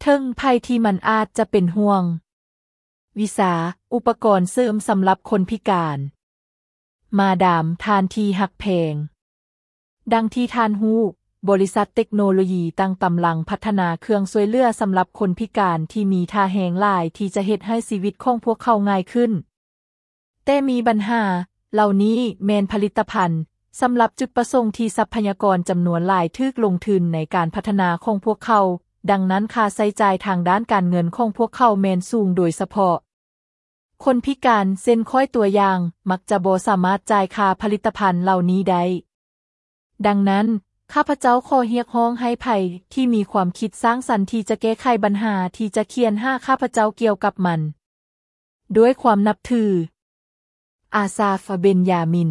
ເຖິງໄພທີ່ມັນອາດຈະເປັນຫ່ວງ. ວິຊາ, ອຸປະກອນເສີມສຳລັບຄົນພິການ. ມາດາມ, ທ່ານທີ່ຮັກແພງ. ດັ່ງທີ່ທ່ານຮູ້, ບໍລິສັດເຕັກໂນໂລຢີຕ່າງກຳລັງພັດທະນາເຄື່ອງຊ່ວຍເຫຼືອສຳລັບຄົນພິການທີ່ມີທ່າແຮງຫຼາຍທີ່ຈະເຮັດໃຫ້ຊີວິດຂອງພວກເຂົາງ່າຍຂຶ້ນ. ແຕ່ມີບັນຫາ, ເຫຼົ່ານີ້ແມ່ນຜະລິດຕະພັນສຳລັບຈຸດປະສົງທີ່ຊັບພະຍາກອນຈຳນວນຫຼາຍຖືກລົງທຶນໃນການພັດທະນາຂອງພວກເຂົາ, ດັ່ງນັ້ນຄ່າໃຊ້ຈ່າຍທາງດ້ານການເງິນຂອງພວກເຂົາແມ່ນສູງ, ໂດຍສະເພາະຄົນພິການ, ເຊັ່ນຂ້ອຍຕົວຢ່າງ, ມັກຈະບໍ່ສາມາດຈ່າຍຄ່າຜະລິດຕະພັນເຫຼົ່ານີ້ໄດ້. ດັ່ງນັ້ນ, ຂ້າພະເຈົ້າຂໍຮຽກຮ້ອງໃຫ້ໃຜທີ່ມີຄວາມຄິດສ້າງສັນທີ່ຈະແກ້ໄຂບັນຫາທີ່ຈະຂຽນຫາຂ້າພະເຈົ້າກ່ຽວກັບມັນ. ດ້ວຍຄວາມນັບຖື. ອາຊາຟ ເບັນຢາມິນ.